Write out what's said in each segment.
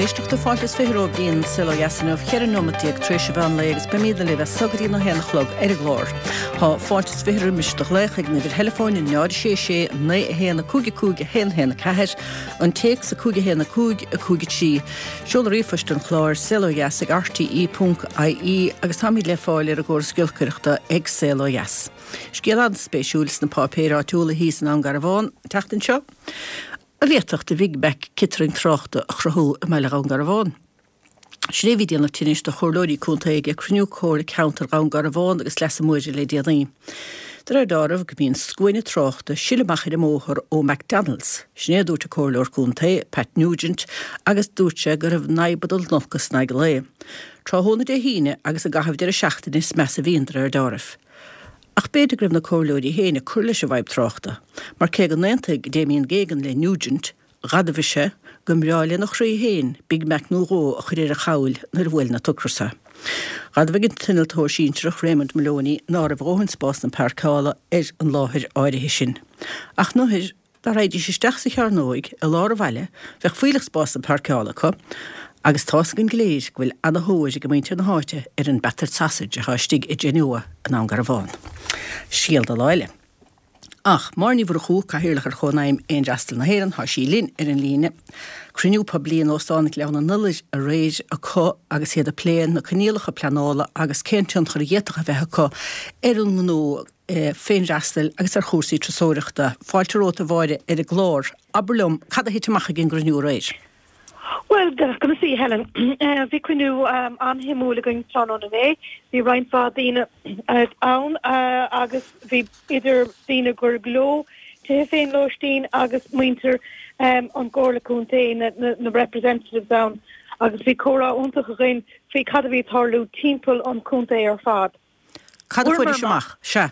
Éisteachta. Fáilte is 20 romhaibh go dtí an Saol Ó Dheas inniu, 14 nóimeat tar éis an mheán lae agus beimidne libh as so go dtí an 1 a chlog ar an gclár. Tá fáilte is 20 roimis do ghlaoch ag an uimhir theileafóin 0 6 6 9 1 5 5 1 1 4, an téacs 5 1 5 5 3, Seoladh ríomhphoist an chláir, saolodheas ag rte.ie agus táimid le fáil ar an gcóras giolcaireachta ag Saol Ó Dheas. Scéal an-spéisiúil sna páipéir áitiúla thíos i nDún Garbhán an tseachtain seo, a bhféadfadh do Bhig Mac ciotrang tráchta a chruthú i mbaile Dhún Garbhán. Sin é a bhí ag déanamh tinnis do chomhairleoirí contae ag cruinniú Comhairle Ceantair Dhún Garbhán agus Leasa Móire le déanaí. De réir dealraimh go mbíonn scuaine tráchta ag sileadh amach ar an mbóthar ó McDonalds. Sin é a dúirt an Comhairleoir Contae, Pat Nugent, agus dúirt sé go raibh an fhadhb ag dul in olcas in aghaidh an lae. Tráthnóna Dé hAoine agus i gcaitheamh deireadh seachtaine is measa a bhíonn, de réir dealraimh. Ach b'fhéidir go raibh na comhairleoirí féin ag cur leis an bhfadhb tráchta, mar cé go n-aontaigh Damien Geoghegan le Nugent, Dh'admhaigh sé go mbreá lena chroí féin Big Mac nó dhó a chur ar a chabhail nuair a bhuaileann an t-ocras é. Dh'admhaigh an t-innealtóir sinsearach Raymond Moloney ná raibh a dhóthain spásanna páirceála ar an láthair áirithe sin. Ach nuair dá raghaidís isteach sa chearnóig i lár an bhaile bheadh fuílleach spásanna páirceála acu agus tá's againn go léir go bhfuil ana-thóir ag muintir na háite ar an battered sausage atá istigh i Genoa i nDún Garbhán. Scéal do lá eile. Ach Máire Ní Mhurchú, Cathaoirleach ar Chónaidhm Fhéinfhreastail na hÉireann, tá sí linn ar an líne. Cruinniú poiblí in Óstán Ghleann an Iolair aréir acu agus iad ag plé na coinníollacha pleanála agus cén tionchar a d'fhéadfadh a bheith acu ar an ngnó féinfhreastail agus ar chúrsaí turasóireachta. Fáilte romhat a Mháire ar an gclár. Abair liom, cad a thit amach ag an gcruinniú aréir? Bhuel, conas í, Helen? Bhí cruinniú an-shuimiúil againn tráthnóna inné. Bhí roinnt mhaith daoine ann agus bhí idir daoine gur leo tithe féinlóistín agus muintir an gComhairle Contae, na representatives ann agus bhí comhrá iontach againn faoi cad a bhí ag tarlú timpeall an chontae ar fad. Cad a fuairis amach? Sea.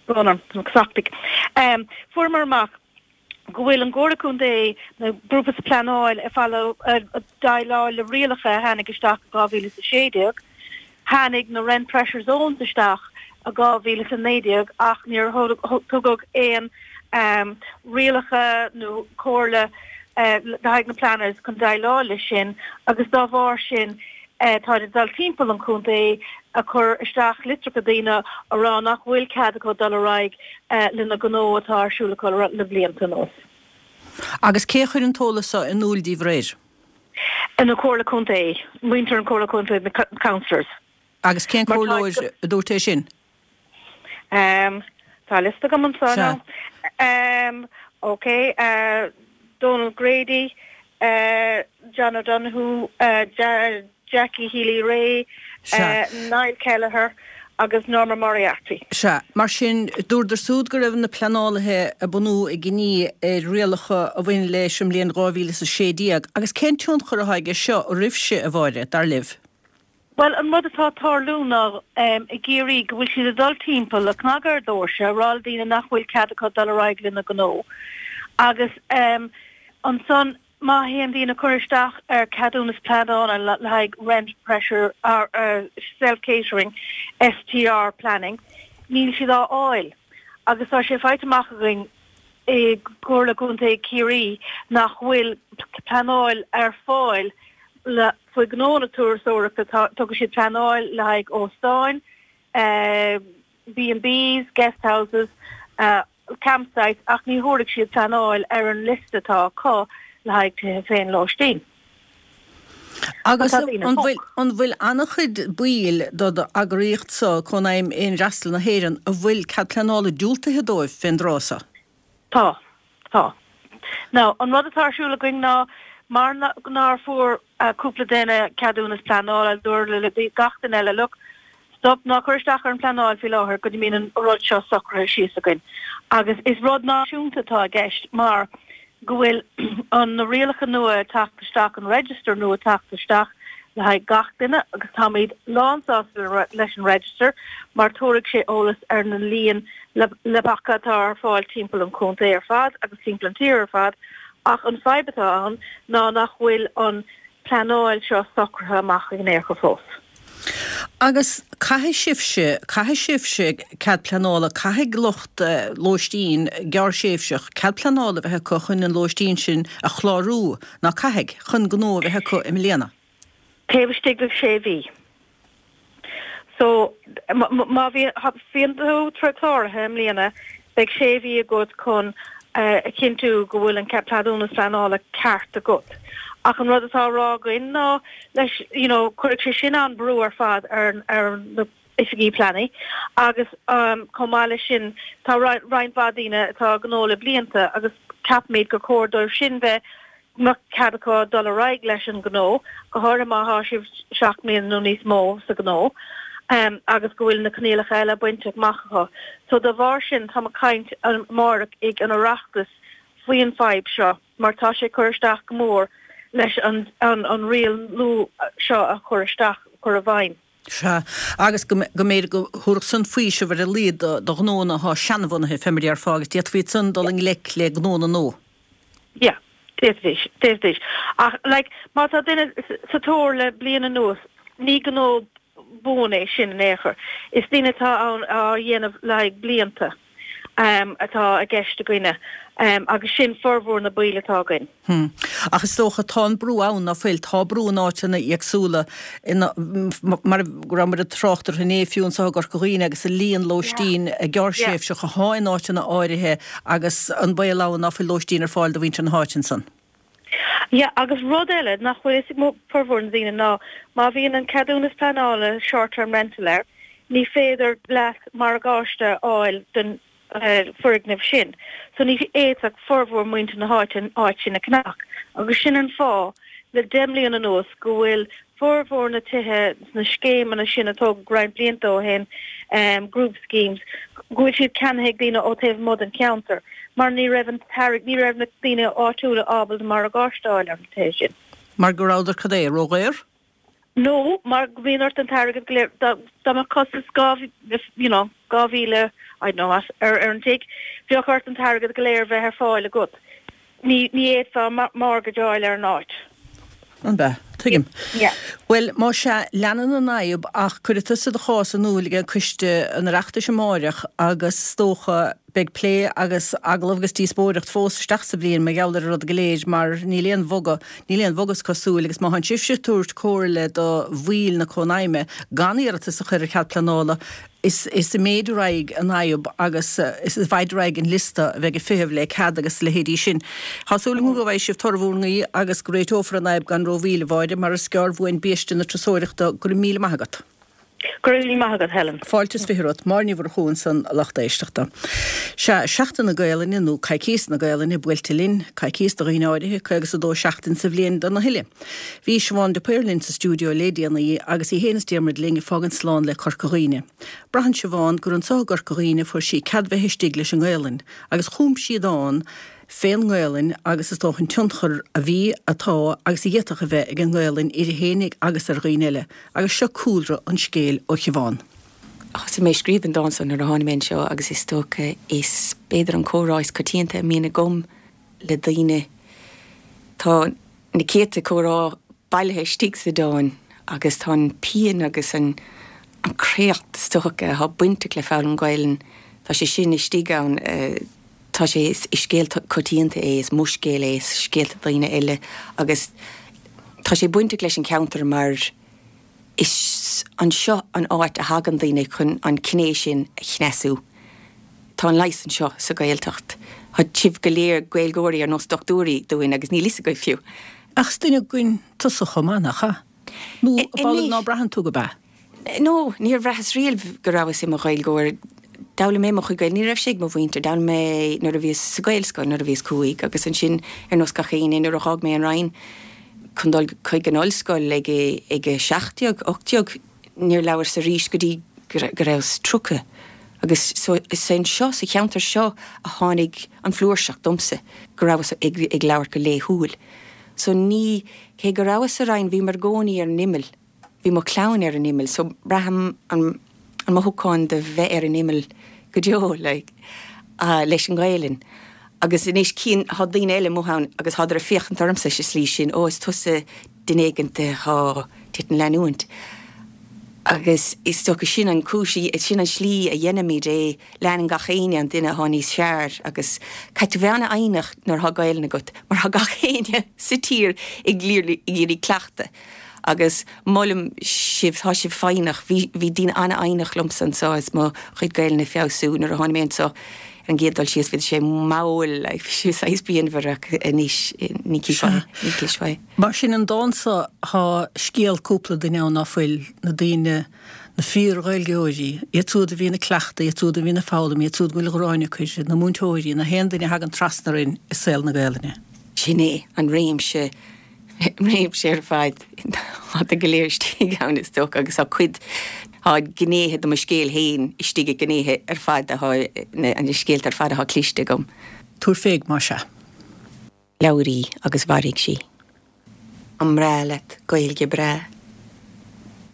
Brón orm, tá mé cosachtaigh. Fuaireamar amach go bhfuil an gComhairle Contae, na grúpa sa pleanáil ag déileáil le rialacha a tháinig isteach i 2016. Tháinig na Rent Pressure Zones isteach i 2019 ach níor tugadh aon rialacha nó comhairle le haghaidh na planners chun déileáil leis sin agus dá bharr sin táid ag dul timpeall an chontae ag cur isteach litreacha daoine a rá nach bhfuil cead acu dul ar aghaidh lena ngnó atá ar siúl acu le blianta anuas. Agus cé a chuir an t-eolas seo in iúl díbh aréir? An Comhairle Contae, muintir an Comhairle Contae, na councillors. Agus cén comhairleoir a dúirt é sin? Tá liosta agam anseo now. Ok, Donal Grady, John O'Donoghue, Jackie Healy-Rae, Niall Kelleher agus Norma Moriarty. Sea. Mar sin, dúradar súd go raibh na pleanálaithe ag bunú a gcinní ar rialacha a bhain leis an mbliain 2016. Agus cén tionchar atá aige seo oraibhse, a Mháire, dar libh? Bhuel, an rud atá ag tarlú ná i gCiarraí go bhfuil siad ag dul timpeall, ag cnagadh ar dhoirse, ag rá le daoine nach bhfuil cead acu dul ar aghaidh lena ngnó. Agus ansan má théann daoine ag cur isteach ar ceadúnas pleanála le haghaidh rent pressure self catering, STR planning, níl siad á fháil. Agus tá sé faighte amach againn i gComhairle Contae Chiarraí nach bhfuil pleanáil ar fáil le faoi ghnó na turasóireachta. Tugann siad pleanáil le haghaidh óstáin, B&Bs, guest houses, campsites ach ní thabharfaidh siad pleanáil ar an liosta atá acu le haghaidh tithe féinlóistín. Agus an bhfuil an bhfuil an-chuid baill do d'eagraíocht-sa, Cónaidhm Fhéinfhreastail na hÉireann, a bhfuil cead pleanála diúltaithe dóibh fén dtráth so? Tá. Tá. Now, an rud atá ar siúl againn ná, mar nár fuair cúpla duine ceadúnas pleanála, dúradh le gach duine eile, look, stop, ná cuir isteach ar an pleanáil faoi láthair go dtí mbíonn an rud seo socraithe síos againn. Agus is rud náisiúnta atá i gceist mar go bhfuil an na rialacha nua ag teacht isteach, an register nua ag teacht isteach le haghaidh gach duine agus táimid lánsásta leis an register mar tabharfaidh sé eolas ar na líon leapacha atá ar fáil timpeall an chontae ar fad agus timpeall an tír ar fad ach an fadhb atá ann ná nach bhfuil an pleanáil seo socraithe amach in aon chor fós. Agus caithfidh sibhse, caithfidh sibhse cead pleanála, caithfidh lucht lóistín gearrthréimhseach cead pleanála a bheith acu chun an lóistín sin a chlárú, ná caithfidh, chun gnó a bheith acu i mbliana? Taobh istigh de shé mhí. So, má bhíonn tú cláraithe i mbliana, beidh sé mhí agat chun a chinntiú go bhfuil an ceadúnas pleanála ceart agat. Ach an rud atá á rá againn ná leis, you know, cuirfidh sé sin an-brú ar fad ar na oifigí pleanála agus chomh maith leis sin tá roinnt mhaith daoine atá ag gnó le blianta agus ceapaimid gur chóir dóibh sin bheith mbeadh cead acu dul ar aghaidh leis an ngnó, go háirithe má thá sibh 7 mbliana nó níos mó sa ghnó agus go bhfuil na coinníollacha eile bainte amach acu. So dá bharr sin táim ag caint amárach ag an Oireachtas faoin fadhb seo mar tá sé ag cur isteach go mór leis an an riail nua seo a chur isteach, chur i bhfeidhm. Sea, agus go mb'fhéidir go thabharfadh san faoiseamh ar a laghad do ghnónna atá seanbhunaithe, fé mar a déarfá, agus d'fhéadfaí ansan dul i ngleic le gnónna nua. Yeah, d'fhéadfaidís, d'fhéadfaidís. Ach, like, má tá duine sa tóir le bliain anuas, ní gnó buan é sin in aon chor. Is daoine atá ann á dhéanamh le haghaidh blianta atá i gceist againne agus sin formhór na baill atá againn. Hm. Ach is dócha, tá an brú ann, ná fuil? Tá brú in áiteanna éagsúla, ina, mar go rabhamar ag trácht orthu inné, fiú anseo i gCorca Dhuibhne agus an líon lóistín gearrthréimhseach athá in áiteanna áirithe agus an baol ann ná fuil lóistín ar fáil do mhuintir na háite ansan. Yeah, agus rud eile nach bhfuil fhios ag formhór na daoine ná má bhíonn an ceadúnas pleanála short term rental air, ní féidir leat morgáiste a fháil don foirgneamh sin. So ní fhéadfadh formhór muintir na háite an áit sin a cheannach. Agus sin an fáth le 10 mbliana anuas go bhfuil formhór na tithe sna scéimeanna sin a tógadh roinnt blianta ó shin, group schemes, go bhfuil siad ceannaithe ag daoine ó taobh amuigh den cheantar mar ní raibh an t-airgead, ní raibh na daoine áitiúla ábalta morgáiste a fháil ar na tithe sin. Mar go rabhadar cad é, ródhaor? Nó mar go mbíonn ort an t-airgead go léir, dá mbeadh costas you know, 2,000, I don't know what, ar an tigh, bheadh ort an t-airgead go léir bheith ar fáil agat. Ní fhéadfá mortgage a fháil ar an áit. An b'ea? Tuigim. Yeah. Bhuel, más ea, leanann an fhadhb ach cuirfidh tusa do chás in iúl ag Coiste an Oireachtais amáireach agus is dócha, Beidh plé agus agallamh agus díospóireacht fós isteach sa bhliain mar gheall ar an rud go léir mar níl aon bhogadh, níl aon bhogadh is cosúil agus má thánn sibhse ag tabhairt comhairle do bhaill na Cónaidhme gan iarratas a chur ar chead pleanála is is ag méadú ar aghaidh an fhadhb agus is i bhfaid ar aghaidh an liosta a bheidh ag feitheamh le cead agus a leithéidí sin. Tá súil agam go bhfaighidh sibh toradh bhur nguí agus go réiteofar an fhadhb gan rómhoill, a Mháire, mar is gearr uainn biaiste na turasóireachta. Go raibh míle maith agat. Go raibh míle maith agat, Helen. Fáilte is 20 romhat. Máire Ní Mhurchú ansan, a lucht éisteachta. Sea, Seachtain na Gaelainne, nó Coicíos na Gaelainne, buailte linn. Coicíos do dhaoine áirithe, 52 seachtain sa bhliain do na huile. Bhí Siobhán de Paor linn sa stiúideo lé déanaí agus í fhéin is Diarmuid linn ag fágaint slán le Corca Dhuibhne. Braitheann Siobhán gur anso i gCorca Dhuibhne a fuair sí cead bheith istigh leis an nGaelainn agus chum sí dán fén nGaelainn agus is dócha an tionchar a bhí, atá agus a d'fhéadfadh a bheith ag an nGaelainn uirthi fhéinig agus ar dhaoine eile. Agus seo cúlra an scéil ó Shiobhán. Thosaigh mé ag scríobh an dán seo nuair a tháinig mé anseo agus is dócha is b'fhéidir an comhrá is coitianta a mbíonn agam le daoine. Tá na céadta comhrá bailithe istigh sa dán agus tá an pian agus an créacht is dócha atá bainteach le foghlaim Gaelainn, tá sé sin istigh ann. Tá sé, is scéal coitianta é, is mo scéal é, is scéalta daoine eile agus tá sé bainteach leis an cheantar mar is anseo an áit a thagann daoine chun an ghné sin a chneasú. Tá an leigheas anseo sa Ghaeltacht. Tá sibh go léir Gaeilgeoirí ar nós dochtúirí dúinn agus níl fhios agaibh fiú. Ach is duine againn tusa chomh maith, nach ea? Nó ab amhlaidh ná braitheann tú gurb ea? No, níor bhraitheas riamh go rabhas i mo Ghaeilgeoir. D'fhoghlaim mé mo chuid Gaeilge, ní raibh sé ag mo mhuintir, d'fhoghlaim mé nuair a bhíos sa Ghaelscoil, nuair a bhíos cúig, agus ansin, ar nós gach éinne, nuair a dh'fhág mé an Rinn chun dul chuig an ollscoil ag ag a 17, 18, níor labhras arís go dtí go rabhas 30. Agus so, is anseo, sa cheantar seo, a tháinig an flúirseacht domsa, go rabhas ag ag labhairt go laethúil. So ní, cé go rabhas sa Rinn, bhíomar i gcónaí ar an imeall. Bhí mo chlann ar an imeall so braithim an an mothúchán de bheith ar an imeall go deo like leis an nGaelainn. Agus anois cíonn, thá daoine eile amuigh ann agus thádar ag féachaint ormsa sa slí sin, ó is tusa duine éigint athá duit an leanúint. Agus is dócha sin an chúis, sin an slí a dhéanaimid é, leanann gach éinne an duine atá níos fearr agus caithfidh tú bheith an-fhoighneach nuair atá Gaelainn agat mar tá gach éinne sa tír ag iarraidh cleachtadh agus molaim sibh, tá sibh foighneach, bhí, bhí daoine an-fhoighneach liomsa anseo is mo chuid Gaelainne ag feabhsú nuair a tháinig mé anseo ar an gcéad dul síos bhí sé mall, bhí sé saghas pianmhar ach anois ní chífeá, ní chloisfeá é. Mar sin an dán so thá scéal cúpla duine ann ná fuil, na daoine, na fíor-Ghaeilgeoirí, iad siúd a bhíonn ag cleachtadh, iad siúd a bhíonn ag foghlaim, iad siúd go bhfuil gráin acu uirthi, na múinteoirí, na haon duine a thagann trasna orainn i saol na Gaelainne. Sin é an réimse, réimse ar fad, tá go léir istigh ann is dócha agus tá cuid, tá gnéithe de mo scéal féin istigh i ngnéithe ar fad atá, na scéalta ar fad atá cliste agam. Tabhair féig más ea. Labhair í agus mhairfidh sí. An mbreá leat Gaeilge breá?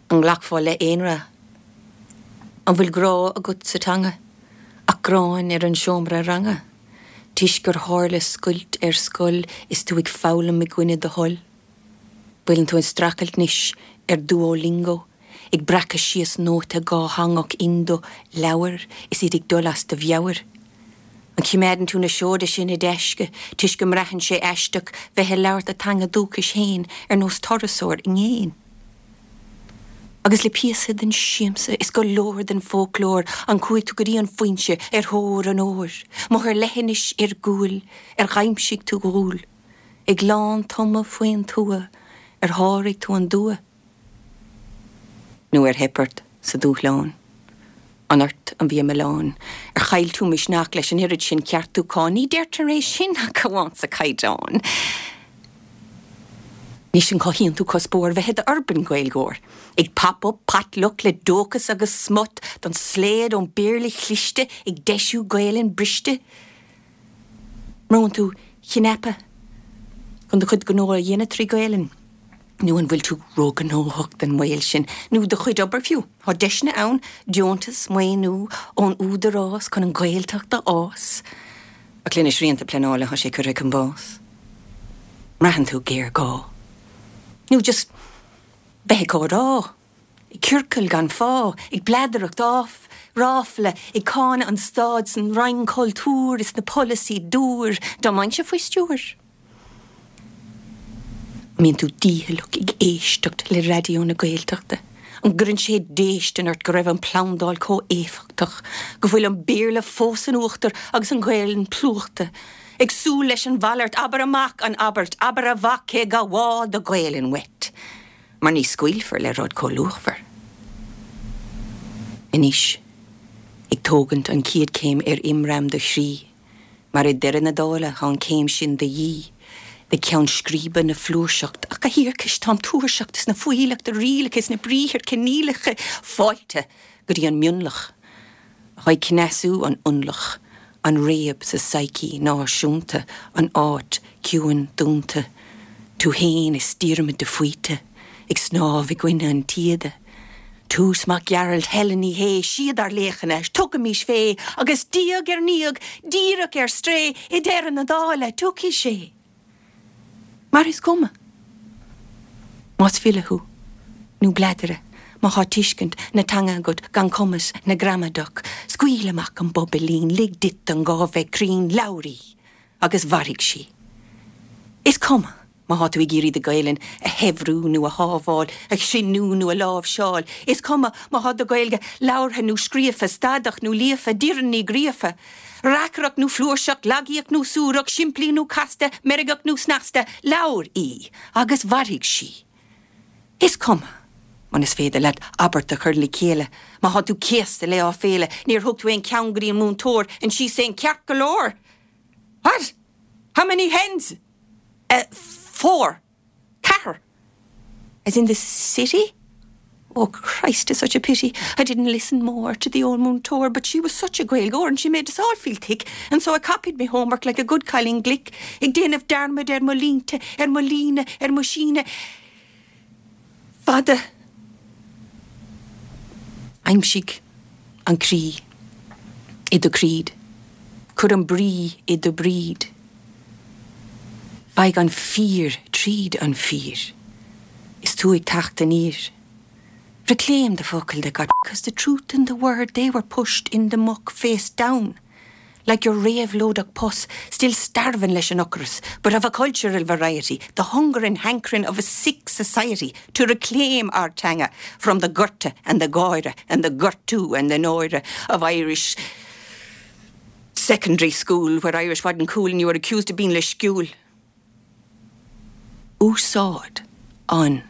An nglacfá le aon rath? An bhfuil grá agat sa teanga ach gráin ar an seomra ranga toisc gur tharla scoilt ar scoil is tú ag foghlaim i gcoinne do thoil? Bhfuileann tú ag streachailt anois ar Duolingo ag breacadh síos nóta dhátheangach indo leabhar is iad ag dul as do mheabhair? An choimeádann tú na seoda sin i dtaisce toisc go mbraitheann sé aisteach bheith ag labhairt do teanga dúchais féin ar nós turasóir i gcéin? Agus le píosa den siamsa is go leor den fhoclóir an chuaigh tú go dtí an foinse ar thóir an óir? Amuigh ar leithinis iargúil ar dh'aimsigh tú dhúil? Ag lántumadh faoin tuath ar sháraigh tú an dua? Nó ar theip ort sa dúshlán? An ort a bhí an milleán? Ar chaill tú misneach leis an oiread sin ceartúchán? Ní deirtear é sin ach amháin sa Chaighdeán. Anois an cothaíonn tú cuspóir bheith i d'urban Gaeilgeoir? Ag pop up potluck le dóchas agus smut don slaod ón Béarla chliste ag deisiú Gaelainn briste? Mbrúann tú cnaipe chun do chuid gnó a dhéanamh trí Ghaelainn? Nó an bhfuil tú róghnóthach don mbaol sin, nó do chuid obair fiú? Tá deiseanna ann, deontas, maoiniú ón Údarás chun an Ghaeltacht a fhás. Ach le na srianta pleanála tá sé curtha chun bás. Mbraitheann tú géarghá? Nó just bheith ag comhrá? Ag ciorcal gan fáth, ag bladaireacht ráfla, ag cáineadh an stáid 's an Roinn Cultúir is na polasaí dúr, dá mbeinnse faoi stiúir. An mbíonn tú dícheallach ag éisteacht le Raidió na Gaeltachta? An gcuireann sé déistin ort go raibh an phlandáil chomh éifeachtach, go bhfuil an Béarla fós in uachtar agus an Ghaelainn plúchta? Ag súil leis an mhalairt, abair amach an abairt, abair a mhac cé gabháil do Ghaelainn uait, mar ní scaoilfear le rud chomh luachmhar. Anois, ag tógaint an chéad chéim ar imram do chroí, Mar i ndeireadh na dála tá an chéim sin de dhíth do cheann scríbe na flúirseacht. Ach a thiarcais, táim tuirseach des na fuílleach de rialacha is na briathar coinníollacha fáilte go dtí an mionlach atá ag cneasú an ionlach, an réab sa psyche náisiúnta, an áit ciúin dúnta, tú fhéin is Diarmuid de Faoite ag snámh i gcoinne an taoide. Toose Mac Gearailt, Helen Ní Shé, siad ár laochanna, tugaimís fé, agus diaidh ar ndiaidh, díreach ar strae, i deireadh na dála, tiocfaidh sé. Mar is cuma más file thú nó bladaire, má thá tuiscint na teanga agat gan cumas na gramadach, scaoil amach an bobailín, lig duit an gá bheith cruinn, labhair í, agus mhairfidh sí. Is cuma. Má thá tú ag iarraidh do Ghaelainn a shaibhriú nó a shábháil, a chruinniú nó a láimhseáil, is cuma má thá do Ghaeilge labhartha nó scríofa, stadach nó líofa, Doireann Ní Ghríofa, reacaireacht nó flúirseach, lagaíoch nó suarach, simplí nó casta, meirgeach nó snasta, labhair í agus mhairfidh sí. Is cuma munas féidir leat abairt a chur le chéile, má thá tú céasta le áiféala, níor thug tú aon cheann go dtí an múinteoir and she's saying ceart go leor! What? How many hens? 4, ceathair as in the city? Oh Christ it's such a pity I didn't listen more to the old múinteoir but she was such a Gaeilgeoir and she made us all feel thick and so I copied me homework like a good cailín glic ag déanamh dearmad ar mo línte ar mo líne ar mo síneadh fada Aimsigh an croí i do creed cuir an brí i do bríd. Faigh an fíor tríd an fíor is tú ag teacht aniar. Reclaim the focal that got 'cause the truth and the word they were pushed in the muck face down like your réabhlóideach pus still starving leis an ocras but of a cultural variety the hunger and hankering of a sick society to reclaim our teanga from the gorta and the gáire and the gortú and the náire of Irish secondary school where Irish wasn't cool and you were accused of being leisciúil. Úsáid an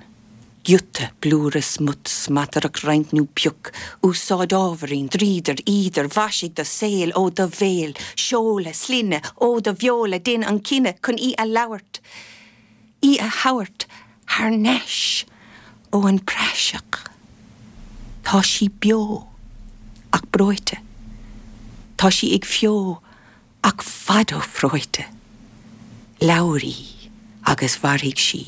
giota blúire smut smataireacht roinnt nó pioc úsáid ábhairín dríodar eadar mhaisigh do saol ó do bhéal seoladh sloinne ó do bheola dein an cinneadh chun í a labhairt í a thabhairt thar n-ais ó an praiseach tá sí beo ach breoite tá sí ag feo Ach fada ó phreoite. Labhair í agus mhairfidh sí,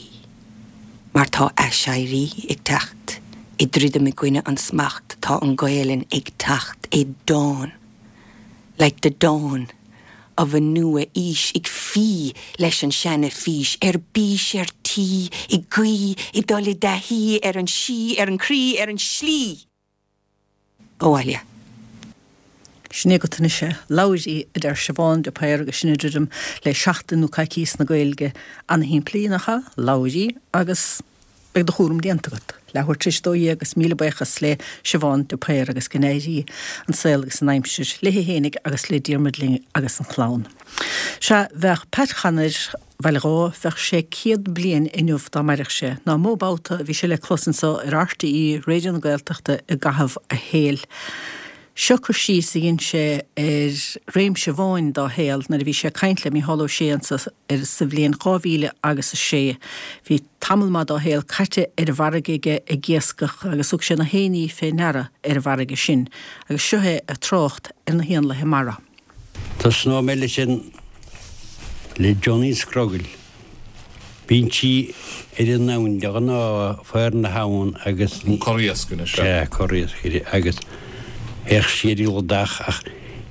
mar tá aiséirí ag teacht, ag druidim i gcoinne an smacht, tá an Ghaelainn ag teacht i dawn, like the dawn of a nua-aois, ag fí leis an seana-fhís, ar bís, ar tí, ag guí, ag dul i dtaithí ar an sí, ar an chroí, ar an slí. abhaile. Sin agat anois é. Labhair í, a deir Siobhán de Paor agus sinn ag druidim le seachtain nó coicíos na Gaeilge. Ana-shimplí, nach ea? Labhair í agus beidh do chúram déanta agat. Leathuair tar éis 12 agus míle buíochas le Siobhán de Paor agus go n-éirí an saol agus an aimsir léi fhéinig agus le Diarmuid linn agus an chlann. Sea, bheadh Pat Chanair, Bhaile Dhamh, bheadh sé 100 bliain inniu dá mairfeadh sé. Ná mó babhta a bhí sé le clos anso ar RTÉ Raidió na Gaeltachta i gcaitheamh a shaoil. Seo cur síos a dhein sé ar réimse amháin dá shaol nuair a bhí sé ag caint le Mícheál Ó Sé anso ar sa bhliain 2000 agus 6. Bhí tamall maith dá shaol caite ar an bhfarraige aige ag iascach agus thug sé na héinní fé ndeara ar an bhfarraige sin. Agus seo é ag trácht ar na héanlaithe mara. Tosnóidh mé leis an, le Johnny Scrogaill. Bíonn sí ar an abhainn de ghnáth, faobhar na habhann agus. An corr-iasc anois, sea. Sea, corr-iascaire agus théadh sí ar an gcladach ach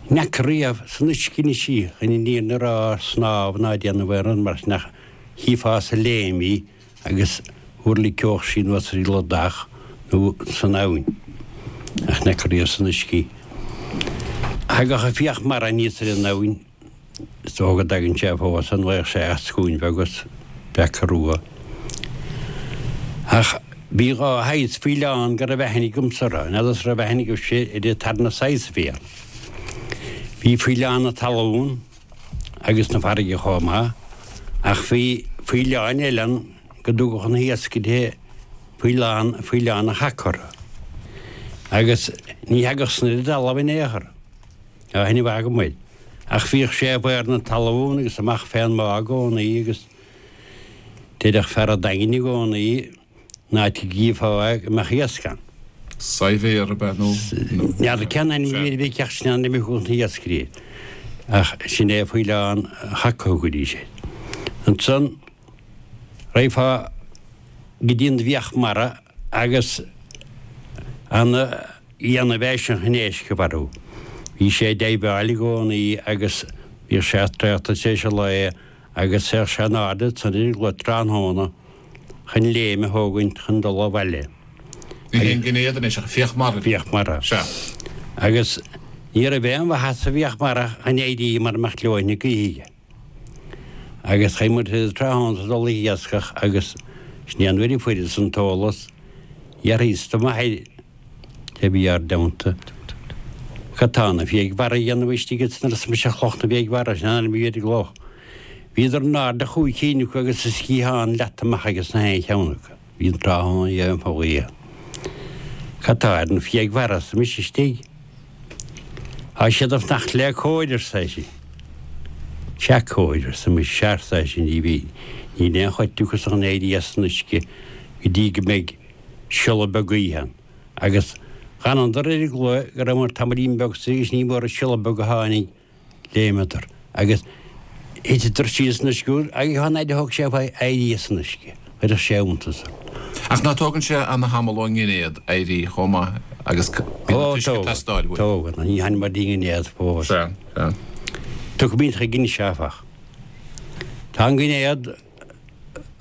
ní fhaca riamh san uisce anois í, chun an fhírinne a rá, snámh ná déanamh aon rud mar sin ach chífeá sa léim í agus thuirlingeodh sí anuas ar an gcladach nó san abhainn, ach ní fhaca riamh san uisce í. Thagadh an fiach mara aníos ar an abhainn, is dócha go dtagann sé fós, an bhfaigheadh sé eascúin bheag agus beaca rua. Ach bhí dha shaghas faoileán go raibh aithne agamsa orthu, n'fheadas an raibh aithne agaibhse ar an tarna saghas a bhí ann. Bhí faoileán na talún, agus na farraige chomh maith, ach bhí faoileáin eile ann go dtugadh na hiascairí faoileán, faoileán an chaca orthu. Agus ní thagadh san ar an dtalamh in aon chor, tá aithne mhaith agam air. Ach bhíodh sé i bhfaobhar na talún agus amach fén mbá i gcónaí agus deireadh fear an Daingin i gcónaí, an áit a gcífeá é go mbeadh iasc ann. Saidhbhéar ab ea nó? N'fheadar cén ainm a bhí air ach sin an ainm a thugadh na hiascairí air. Ach sin é faoileán an chaca a thugaidís air. Ansan raghfá go dtí an bhfiach mara agus ana dhéanamh eisean chun éisc a mharú. Bhí sé ag deighbheáil i gcónaí agus bhíodh sé traochta tar éis an lae agus théadh sé in airde ansan ar an gclaí tráthnóna chun léim a thógaint chun dul abhaile. Ní hé an geinnéad anois ach fiach mara. Fiach mara. Sea. Agus ní raibh aon mhaitheas sa bhfiach mara chun éirí mara mbeadh leoithne na gaoithe aige. Agus chaith muid tráthnóna ag dul ag iascach agus sin é an uair a fuaireas an t-eolas, d'fhiafraíos de m'athair a bhí ár dteannta. Cad tá na fiaigh mhara a dhéanamh istigh ins an arsa mise Cloch na bhFiaigh Mhara, sin an ainm a bhí ar an gcloch. Bhíodar in airde chúig cinn acu agus a sciathán leata amach aige sna haon cheann acu. Bhí an tráthnóna dhéanamh fá ghaoth. Cad tá ar na fiaigh mhara arsa mise istigh? Tá siad ag fanacht le cóir, arsa eisean. Sea cóir, arsa mise, sea, arsa eisean, ní bhí, níl aon chuid acu chun éirí as an uisce go dtí go mbeidh siolla beag gaoithe ann. Agus dh'fhanadar ar an gclaí go rabhamar tamaillín beag sa agus ní mór an siolla beag a tháinig, léimeadar agus thiteadar síos san uisce agus an fhaid a thóg sé uaidh éirí as an uisce, chuirfeadh sé iontas ort. Ach ná tógann sé ana-thamall ón nginéad éirí chomh maith agus bíonn an t-uisce ag teastáil uaidh. Tógann, ní tháinig dtí an nginéad fós. Sea, sea. Tiocfaimid chuige anois áfach. Tá an ginéad.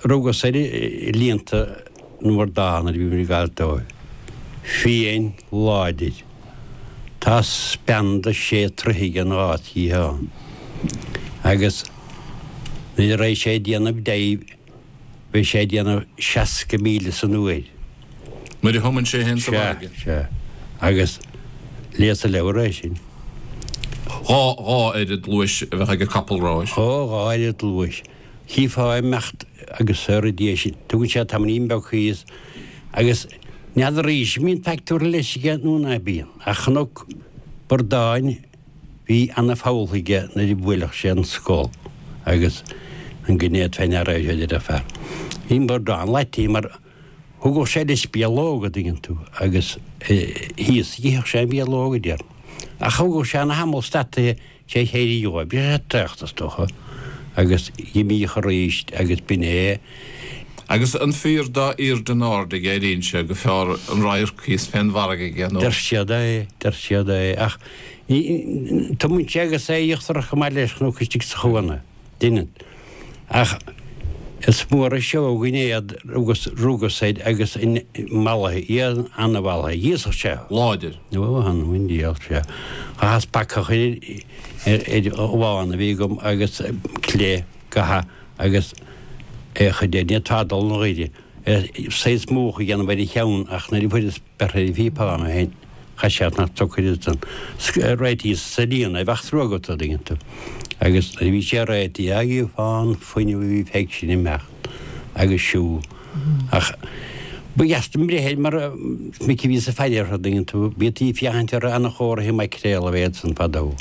Rugas air i líonta na mBradán nuair a bhí muid ag gabháil dóibh. Fiáin láidir. Tá speanda sé troithe aige an dhá sciathán. Agus nuair a raghaidh sé ag déanamh dive beidh sé ag déanamh 60 míle san uair. Nuair a thumann sé féin sa bhfarraige. Sea, sea. Agus léas an leabhar é sin. Dhá, dhá oiread luais a bheadh ag capall ráis. Ó, dhá oiread luais. Chífeá ag imeacht agus soir i ndiaidh sin. Tugann sé tamaillín beag thíos agus n'fheadar arís an mbíonn faic tabhartha leis aige nó ná bíonn. Ach Chnoc Bordáin bhí ana-pholl aige nuair a bhuailfeadh sé an scol agus an gné fé ndeara é seo a deir an fear. Bhí an bordán leite mar thugadh sé leis bialóg a dtuigeann tú agus thíos itheadh sé an bhialóg a deir. Ach thugadh sé ana thamall stadtaithe Sé chéirí dhóibh, bhí sé traochta is dócha, agus dh'imíodh arís agus b'in é. Agus an fíor dá aoirde an aird aige éiríonn sé gur fearr an radharc thíos fén bhfarraige aige nó. Deir siad é, deir siad é, ach ní, tumann sé agus é íochtarach chomh maith leis chnoc istigh sa chuan é, deineann. Ach is mór an seó an gainéad rugas, rugas air agus mallaithe, iad an-mhallaithe. Dh'íosfadh sé. Láidir. Ó, th'anam 'on diabhal, sea. Chaitheas bacach ar, ar ghabhán a bhí agam agus cleith, gabha agus é a chur de, ní fhéadfá dul 'na ghaire, saghas múch a dhéanamh ar a cheann ach nuair a fuaireas beirthe ar an phíopán ó shin, chaith sé nach tsocair ansan. Réitíos sa líon é, bheadh trua agat, a' dtuigeann tú. Agus nuair a bhí sé réitithe, á gheofá an fuinneamh a bhí fé sin imeacht agus siúl. Ach ba dheas dom breith air mar is minic a bhíos ag faire orthu, a' dtuigeann tú. Bhítí ag féachaint orthu ana-chomhartha maicréal a bheadh ansan fadó.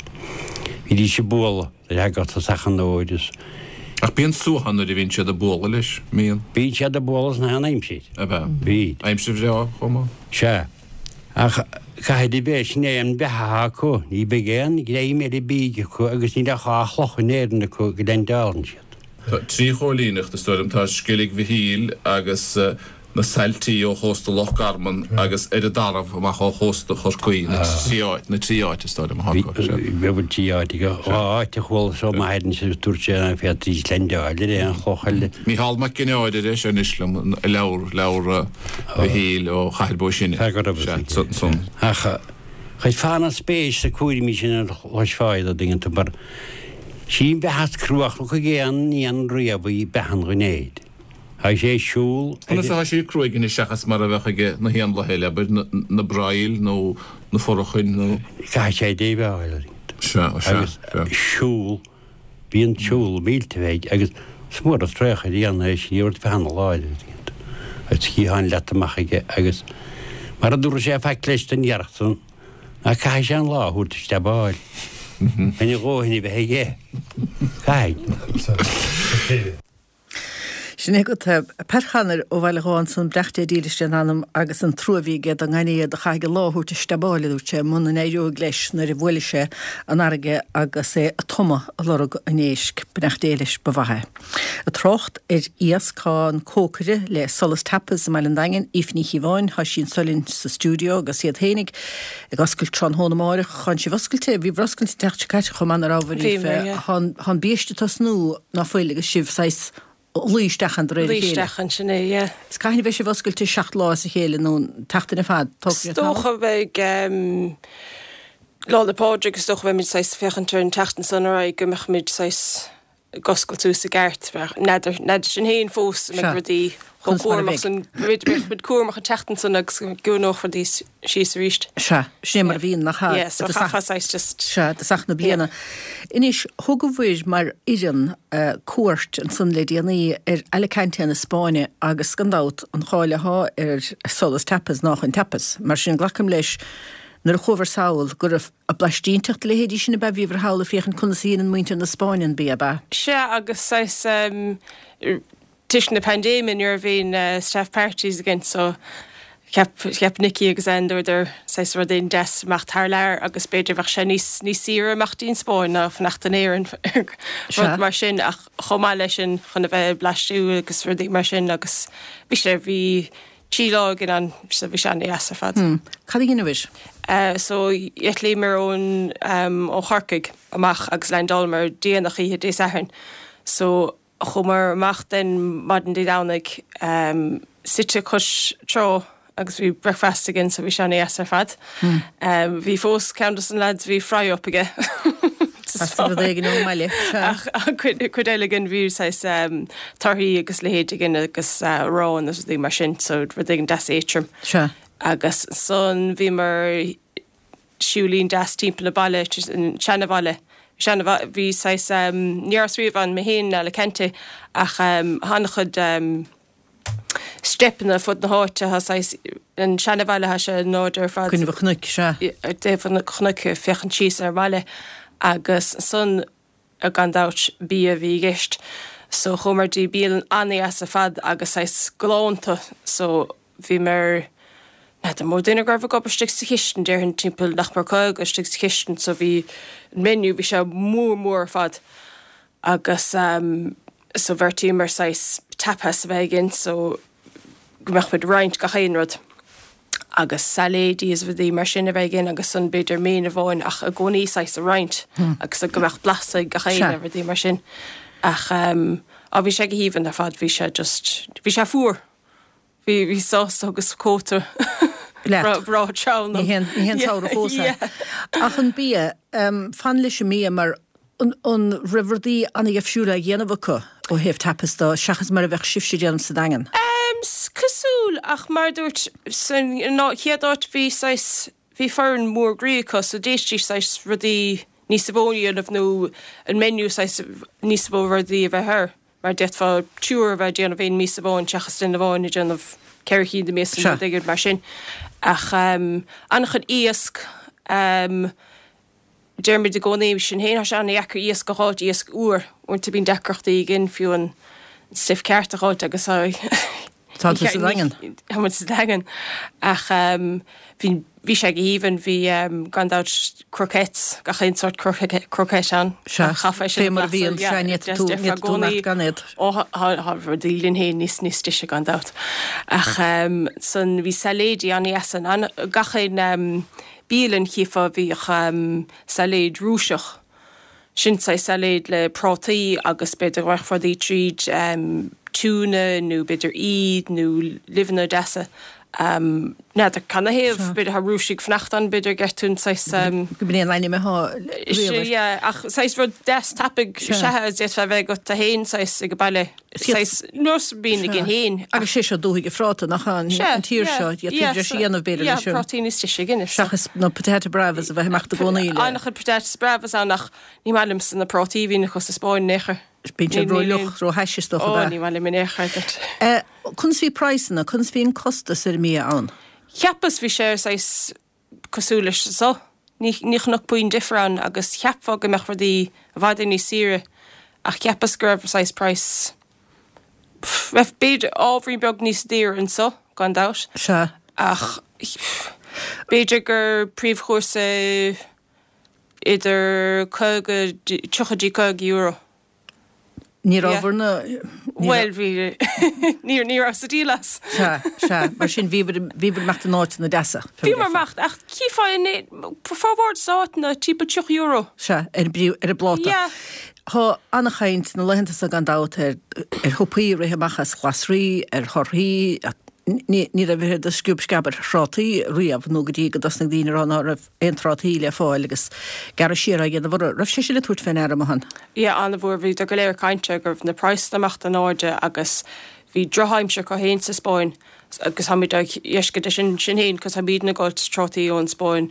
Bhídís ag bualadh nuair a thagadh tosach an fhómhair is. Ach bíonn suaitheadh nuair a bhíonn siad ag bualadh leis, mbíonn? Bíonn siad ag bualadh sna haon aimsir. Ab ea? Bíd. Aimsir bhreá chomh maith? Sea. Ach caithfidh a bheith, sin é an bheatha atá acu. Ní bheidh aon ghreim eile bídh acu agus níl ach dhá chloch in Éirinn acu go leaindeálann siad. Tá trí chóilíneacht, is dóigh liom. Tá Sceilg Mhichíl agus na Sailtí ó chósta Loch Garman agus ar an dTarbh amach ó chósta Chorcaí, na trí áit, na trí áit is dóigh liom atá acu. Sea. Bhfuil trí áit acu. Dhá áit a chuala seo m'athair anois agus dúirt sé ná féadfaidís leaindeáil ar aon chloch eile. Mícheál Mac Ginneáir a deir sé anois liom, i leabhar, leabhar Mhichíl ó Chathair Bó Sine. Fear go raibh a fhios aige. Ach chuirfeá ana-spéis sna cúraimí sin a chloisfeá iad, a dtuigeann tú, mar Sí an bheatha is cruachna chuig aon éan riamh í beatha an ghainéid. Tá sé ag siúl ar. Conas atá sí cruaidh anois seachas mar a bheadh aige na héanlaithe eile, abair, na braill nó na forachain nó. Caithfidh sé déileáil ar Sea, sea, agus siúl, bíonn siúl mílte aige agus is mór an traochadh a dhéanamh é sin, ní raibh bheatha ana-láidir agus sciatháin leata amach aige agus mar a dtabharfadh sé faic leis don ghearrthach san, Ná caithfidh sé an lá a thabhairt steabáil. Chun a dhóthain a bheith aige. Caithfidh. Sin é agat Pat Chanair ó Bhaile Ghabha ansan, beannacht Dé dílis lena anam agus an trua a bhí aige don ngainéad a chaithfidh an lá a thabhairt ag steabáil, a dúirt sé, muna n-éireoidh leis nuair a bhuailfidh sé an fharraige agus é ag tumadh ag lorg an éisc. Beannacht Dé leis, ba mhaith é. Ag trácht ar iasc, tá an cócaire le Solas Tapas i mBaile an Daingin, Aoife Ní Chíobháin, tá sí anso linn sa stiúideo agus iad féinig ag oscailt tráthnóna amáireach. Tánn sibh oscailte, bhíobhair oscailte an tseachtain seo caite chomh maith, nach rabhabhair, Aoife? Bhíomar, yeah. Tá an biaiste ag tosnú ná fuil agus sibh saghas ag luí isteach ann de réir a Luí chéile. isteach ann, sin é, yeah. Is cathain a bheidh sibh oscailte seacht lá as a chéile nó an tseachtain ar fad? Tógfaidh sé Is tamall. dócha beidh Lá 'le Pádraig is dócha beimid saghas ag féachaint ar an tseachtain san ar aghaidh go mbeadh muid saghas ag oscailt suas i gceart. N'fheadar, n'fheadar sin féin fós an mbeidh rudaí chomh Conas mar a cúramach bheidh. san, b'fhéidir beidh muid cúramach an tseachtain san agus go gciúnódh rudaí síos arís. Sea, sin é mar a bhíonn, nach ea? Yeah, so chaithfeá saghas just. Sea, i dtosach na bliana. Anois, thugabhair mar fhoireann cuairt ansan le déanaí ar Alicante na Spáinne agus gan dabht an cháil athá ar Solas Tapas ná chun tapas. Mar sin glacaim leis nuair a chuabhair sall go raibh Ag blaistínteacht a leithéidí sin ab ea? Bhíobhair thall ag féachaint conas a dhéanann muintir na Spáinne an bia, ab ea? Sea, agus saghas toisc na paindéime ní raibh aon staff parties againn so cheap, cheap Nicky agus Anne dúradar saghas rud éigin deas imeacht thar lear agus b'fhéidir bheadh sé níos, níos saoire imeacht dtí'n Spáinn ná fanacht in Éirinn rud mar sin ach chomh maith leis sin chun a bheith ag blaistiú agus rudaí mar sin agus bhí sé, bhí Trí lá againn ann so bhí sé an-deas ar fad. Cad a dheineabhair? So d'eitlíomar ón ó Chorcaigh amach agus leaindeálamar déanach oíche Dé Sathairn. So chuamar amach den maidin Dé Domhnaigh suite cois trá. agus bhí breakfast againn so bhí sé ana-dheas ar fad. Bhí fós ceann dos na lads bhí fry up aige. As rud éigin ón mbaile, sea. Ach cuid eile againn bhí saghas torthaí agus leithéid againn agus arán agus rudaí mar sin so rud éigin deas éadtrom. Sea. Agus ansan bhíomar siúilín deas timpeall an baile, an seanabhaile. Seanabhaile, bhí saghas, ní rabhas riamh ann mé féin in Alicante ach an-chuid steipeanna fud na háite, tá saghas, an seanabhaile, tá sé in airde ar fad. Coinnibh an chnoic, sea. Ar dtaobh an chnoic, ag féachaint síos ar an mbaile agus ansan, gan dabht, bia a bhí i gceist. So chuamar dtí bialann an-dheas ar fad agus saghas galánta so bhíomar, n'fheadar an mó duine go raibh ag obair istigh sa chistin, déarfainn timpeall nach mór 50 istigh sa chistin so bhí an menu, bhí sé mór mór ar fad agus so bheartaíomar saghas tapas a bheith againn so go mbeadh muid ag roinnt gach aon rud agus sailéidí is rudaí mar sin a bheith againn agus ansan b'fhéidir main amháin ach i gcónaí saghas a roinnt agus go mbeadh blas ag gach aon rudaí mar sin ach á bhí sé go haoibhinn ar fad bhí sé just bhí sé fuar. Bhí, bhí sásta agus cóta Leat. breá teann. Ní haon, ní haon samhradh fós é. Ach an bia, fan leis an mbia mar an, an raibh rudaí an-dheifriúil á dhéanamh acu ó thaobh tapas de seachas mar a bheadh sibhse ag déanamh sa Daingean? Cosúil ach mar a dúirt, san chéad áit bhí saghas, bhí foireann mór groí acu so d'fhéadfaidís saghas rudaí níos mó a dhéanamh nó an menu saghas níos mó rudaí a bheith air. Mar d'fhéadfá triúr a bheith ag déanamh aon mias amháin seachas duine amháin ag déanamh ceithre chinn de mhias nó rud éigin mar sin. Ach an-chuid iasc, deirimid i gcónaí sinn féin, tá sé an-dheacair iasc a dh'fháilt, iasc úr. Uaireanta bíonn deacrachtaí againn fiú an stuif ceart a dh'fháilt agus Tá tú sa Daingean. Tá muid sa Daingean. Ach bhí, bhí sé go haoibhinn, bhí gan dabht croquettes, gach aon sórt croquette ann. Sea, fé mar a bhíonn, sea, ní fhéadfaidh tú, ní fhéadfaidh tú imeacht gan iad. Ó, tá rudaí linn féin níos, níos deise gan dabht. Ach san, bhí sailéidí an-dheas ann, gach aon bialann chífeá bhíodh sailéid Rúiseach. Sin saghas sailéid le prátaí agus b'fhéidir go mbeadh rudaí tríd, tuna nó b'fhéidir aoil nó luibheanna deasa. N'fheadar canathaobh, b'fhéidir tá Rúisigh ag fanacht ann, b'fhéidir go gceart an saghas. Go b'in é an ainm atá riamh air. Yeah, ach saghas rud deas tapaidh sea a d'fhéadfá a bheith agat tú féin saghas ag an baile. Saghas nós a bhíonn againn féin. Agus sé seo dúthaigh an phráta, nach ea, an tír seo, d'fhéadfaí breis a dhéanamh b'fhéidir leis sin. Prátaí níos deise againn. Seachas na patata bravas a bheith ag imeacht i gcónaí le. An-chuid patatas bravas ann ach ní maith liomsa na prátaí a bhíonn acu sa Spáinn in aon chor. Bíonn siad ró-fhliuch, ró-thaise is dócha ab ea? Ó, ní maith liom in aon chor duit. Conas bhí praghsanna, conas bhí an costas ar an mbia ann? Cheapas bhí sé saghas cosúil leis anso. Ní chonac puinn difear ann agus cheapfá go mbeadh rudaí i bhfad níos saoire ach cheapas go raibh saghas praghas, raibh b'fhéidir ábhairín beag níos daoire anso gan dabht. Sea. Ach b'fhéidir gur príomhchúrsa idir 50, 30 dtí 50 euro. Ní raibh bhur na. Bhuel, bhí, ní, ní rabhas ag díol as. Sea, sea, mar sin bhíobhair, bhíobhair ag imeacht in áiteanna deasa. Bhíomar ag imeacht, ach chífeá in, formhór des na háiteanna timpeall 30 euro. Sea, ar an bpríomh, ar an bpláta. Yeah. Tá an-chaint na laethanta seo gan dabht ar, ar shiopaí ag rith amach as glasraí, ar thorthaí, ní, ní raibh a oiread de sciob sceab ar thrátaí riamh nó go dtí go dtosnaigh daoine a rá ná raibh aon trátaí le fáil agus gearradh siar á dhéanamh orthu. Raibh sé sin ag tabhairt fé ndeara amuigh ann? Yeah, an-mhór. Bhíodar go léir ag caint air go raibh na praghsanna ag imeacht in airde agus bhí drochaimsir acu féin sa Spáinn agus táimid á dheisce de sin sinn féin cos táimidne ag fáilt trátaí ón Spáinn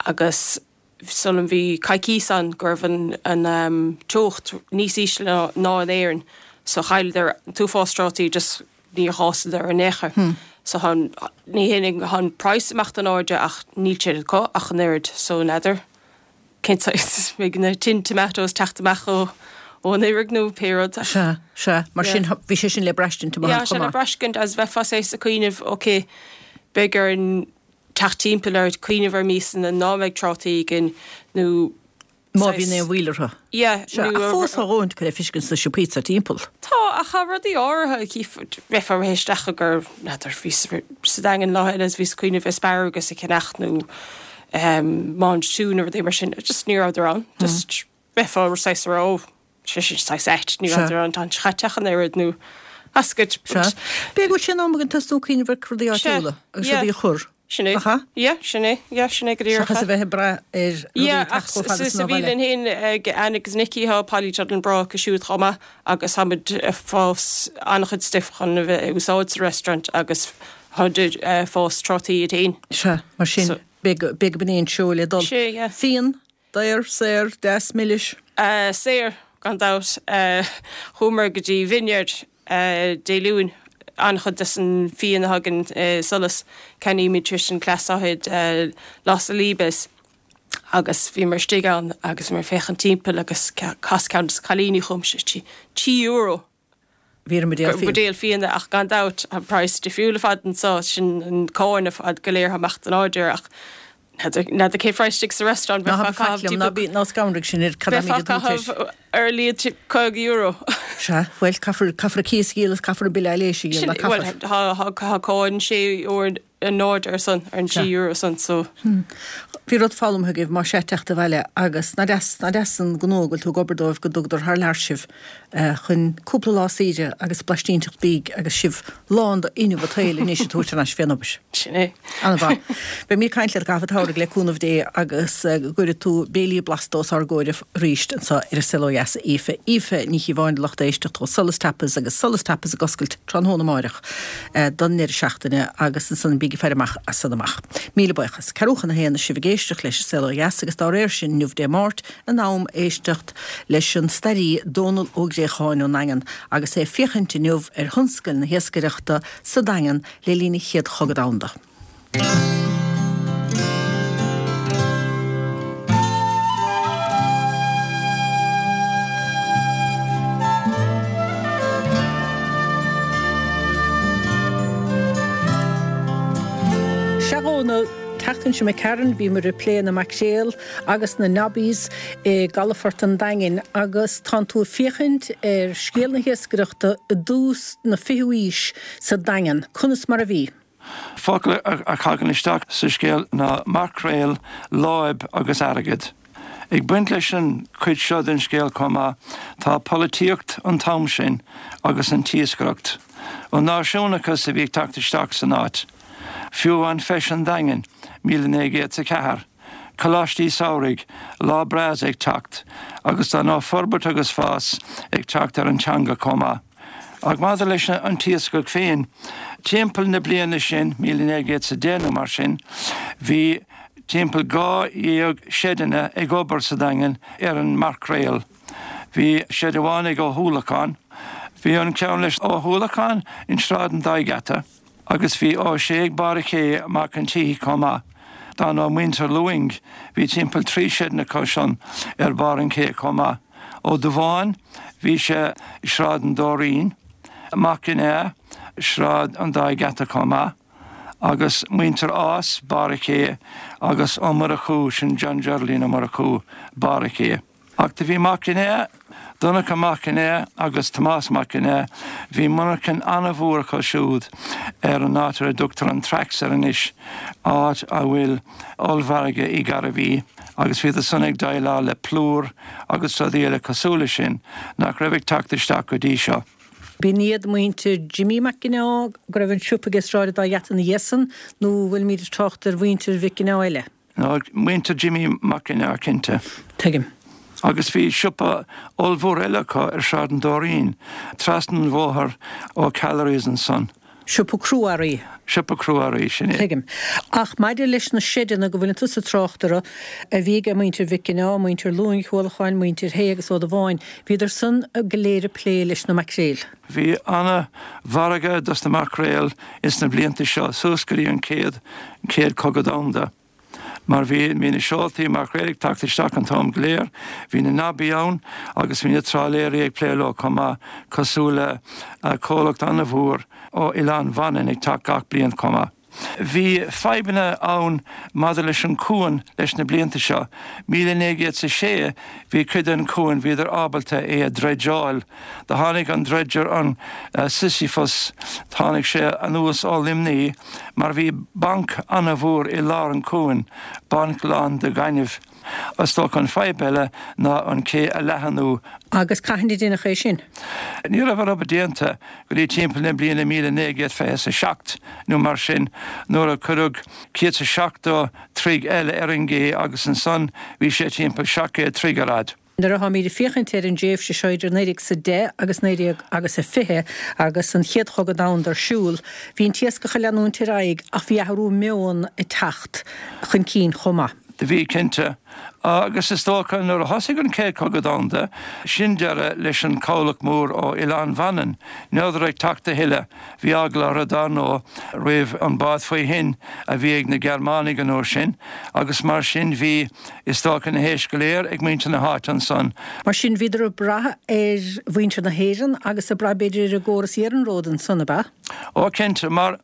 agus sula bhí coicíos ann go raibh an an teocht níos ísle ná in Éirinn so chailleadar an t-uafás trátaí just Níor fhásadar in aon chor. So tá an, ní hé tá an praghas ag imeacht in airde ach níl siad acu ach an oiread so n'fheadar cén saghas, beidh na tin tomatoes teacht amach ó ón fharraige nó pé rud. Sea, sea, mar sin bhí sé sin le braistint amach Yeah, sé le braistint agus bheifeá saghas ag cuimhneamh ok, beidh orainn teacht timpeall ar cuimhneamh ar mhiasanna ná mbeidh trátaí againn nó Má bhíonn aon mhoill orthu. Yeah, Sea, ach fós tá dhóthain acu le feiscint sna siopaí atá timpeall. Tá, ach tá rudaí áirithe, chífeá, bheifeá ag rith isteach i gur, n'fheadar, bhíos sa Daingean lá eile is bhíos ag cuimhneamh asparagus a cheannach nó mange tout nó rudaí mar sin, just ní rabhadar ann. Just bheifeá saghas ag rá, oh, sé sin saghas ait, ní rabhadar ann, tá an chaite ach an oiread nó. Basket. Sea. B'fhéidir go bhfuil sé in am againn tosnú ag cuimhneamh ar rudaí áitiúla agus rudaí a chur. Sin é. Nach ea? Yeah, sin é. Yeah, sin é go díreach. Seachas a bheith ag brath ar rudaí Yeah, ag teacht ach chomh fada sa san ó bhaile. bhialann féin ag Anne agus Nicky tá polytunnel breá acu siúd chomh maith agus táimid ag fás an-chuid stuif chun a bheith ag úsáid sa restaurant agus táimid ag fás trátaí iad féin. Sea, mar sin, So. b'fhéidir go b'in é an treo le dul. Sea, yeah. Fíon, daor, saor, deas, milis. Saor, gan dabht. Chuamar go dtí vineyard Dé Luain. An-chuid des an fíon a thagann i Solas, ceannaímid tríd an cleasaithe Los Olivos agus bhíomar istigh ann agus bhíomar ag féachaint timpeall agus chas ceann des na cailíní chugam, €3. Bhí ar an mbuidéal fíona. Buidéal fíona ach gan dabht tá praghas difriúil ar fad anso, sin an cáin ar fad go léir amach den áit ach n'fheadar cén phraghas istigh sa restaurant, Ná bheifeá ag caitheamh ná bí ná scanraigh sinn ar cad bheifeá ag caitheamh ar a laghad €50. Sea, bhuel, caithfear caithfear an cíos a dhíol is caithfear an bille aibhléise a dhíol, ná caithfear. Bhuel, tá cáin €6 in airde ar son, ar an €6 san, so. Bhí rud foghlamtha agaibh más ea teacht abhaile agus ná deas, ná deas an gnó go bhfuil tú ag obair dóibh go dtugadar thar lear sibh chun cúpla lá saoire agus blaistín-teacht bídh agus sibh lán d'fhuinneamh an tsaoil anois ag tabhairt thar n-ais fén obair. Sin é. An-mhaith. Beidh mé ag caint leat i gcaitheamh an tsamhraidh le cúnamh Dé agus go gcuirfidh tú béilí blasta os ár gcomhair arís anseo ar An Saol Ó Dheas, a Aoife. Aoife Ní Chíobháin do lucht éisteachta ó Solas Tapas agus Solas Tapas ag oscailt tráthnóna amáireach don ndeireadh seachtaine agus ansan bígí ag faire amach as san amach. Míle buíochas. Ceathrú chun a haon is sibh ag éisteacht leis An Saol Ó Dheas agus dá réir sin inniu Dé Máirt in am éisteacht leis an stairí Dónal Ó Gréacháin ón nDaingean agus é ag féachaint inniu ar thionscail na hiascaireachta sa Daingean le linn an Chéad Chogadh Domhanda. Sea a Dhónaill, an tseachtain seo imigh tharainn bhíomar ag plé na maicréal agus na nobbies i gcalafort an Daingin agus tánn tú ag féachaint ar scéal na hiascaireachta i dtús na fichiú aois sa Daingean. Conas mar a bhí? Focail a thagann isteach sa scéal ná maicréal, láib agus airgead. Ag baint leis an chuid seo den scéal chomh maith tá polaitíocht an t-am sin agus an t-iascaireacht. An náisiúnachas a bhí ag teacht isteach san áit. Fiú amháin Feis an Daingin, 1904. Coláistí samhraidh, Lá Breá ag teacht agus dar ndóigh forbairt agus fás ag teacht ar an teanga chomh maith. Ach maidir leis an t-iascach féin, timpeall na bliana sin, 1910 nó mar sin, bhí timpeall 12 seideanna ag obair sa Daingean ar an maicréal. Bhí seid amháin ag Ó hUallacháin. Bhí an ceann leis Ó hUallacháin in Sráid an Dá Gheata. Agus bhí Ó Sé ag barr an ché Mac an tSíthigh chomh maith. Dar ndóigh muintir Lúing, bhí timpeall 3 seideanna acu san ar barr an ché chomh maith. Ó Dubháin, bhí sé i Sráid an Dóirín. Mac Ginneá, Sráid an Dá Gheata chomh maith. Agus muintir Ághas, barr an ché, agus Ó Murchú, sin John Geraldine Ó Murchú, barr an ché. Ach do bhí Mac Ginneá, Donncha Mac Ginneá agus Tomás Mac Ginneá, bhí monarchain an-mhór acu siúd ar an áit ar a dtugtar an Tracks air anois, áit a bhfuil ollmhargadh Uí Ghairbhí, agus bhíodar san ag déileáil le plúr agus rudaí eile cosúil leis sin nach raibh ag teacht isteach go dtí seo. B'in iad muintir Jimmy Mac Ginneá go raibh an siopa aige i Sráid an Dá Gheata ina dhiaidh san, nó bhfuilimid ag trácht ar mhuintir Mhic Ginneá eile? Nó muintir Jimmy Mac Ginneá, cinnte. Tuigim. Agus bhí siopa ollmhór eile acu ar Shráid an Dóirín, trasna an bhóthair ó Callery's ansan. Siopa crua-earraí. Siopa crua-earraí, sin é. Tuigim. Ach maidir leis na seideanna go bhfuileann tusa ag trácht orthu, a bhí ag muintir Mhic Ginneá, muintir Lúing, Uallacháin, muintir Shé agus Ó Dubháin, bhíodar san go léir ag plé leis na maicréil. Bhí ana-mhargadh dos na maicréil ins na blianta seo suas go dtí an chéad Chéad Chogadh Domhanda mar bhí bhí na seoltaí maicréil ag teacht isteach an t-am go léir, bhí na nobbies ann agus bhí na trálaeirí ag plé leo chomh maith cosúil le comhlacht ana-mhór ó Oileán Mhanainn ag teacht gach bliain chomh maith. Bhí fadhbanna ann maidir leis an cuan leis na blianta seo. 1906 bhí cuid den cuan, bhíodar ábalta é a dredgeáil. Do tháinig an dredger an Sisyphus, tháinig sé anuas ó Luimní mar bhí banc ana-mhór i lár an cuain, banc lán de ghaineamh. Is dócha an fadhb eile ná an cé a leathanú. Agus cathain a deineadh é sin? Ní raibh an obair déanta go dtí timpeall na bliana 1927 nó mar sin nuair a cuireadh 170 troigh eile ar an gcé agus ansan bhí sé timpeall 700 troigh ar fhad. Nuair atháimid ag féachaint ar an dtréimhse seo idir 1910 agus 19 agus a 20 agus an Chéad Chogadh Domhanda ar siúl, bhí an t-iascach ag leanúint ar aghaidh ach bhí athrú meoin ag teacht chun cinn chomh maith. Do bhí, cinnte. Agus is dócha nuair a thosaigh an Chéad Chogadh Domhanda, sin deireadh leis an chabhlach mór ó Oileán Mhanann. Ní rabhadar ag teacht a thuilleadh. Bhí eagla orthu, dar ndóigh, roimh an bád faoi thoinn a bhí ag na Gearmánaigh an uair sin agus mar sin bhí, is dócha, na héisc go léir ag muintir na háite ansan. Mar sin bhíodar ag brath ar mhuintir na hÉireann agus ag brath b'fhéidir ar an gcóras iarnróid ansan, ab ea? Ó cinnte, mar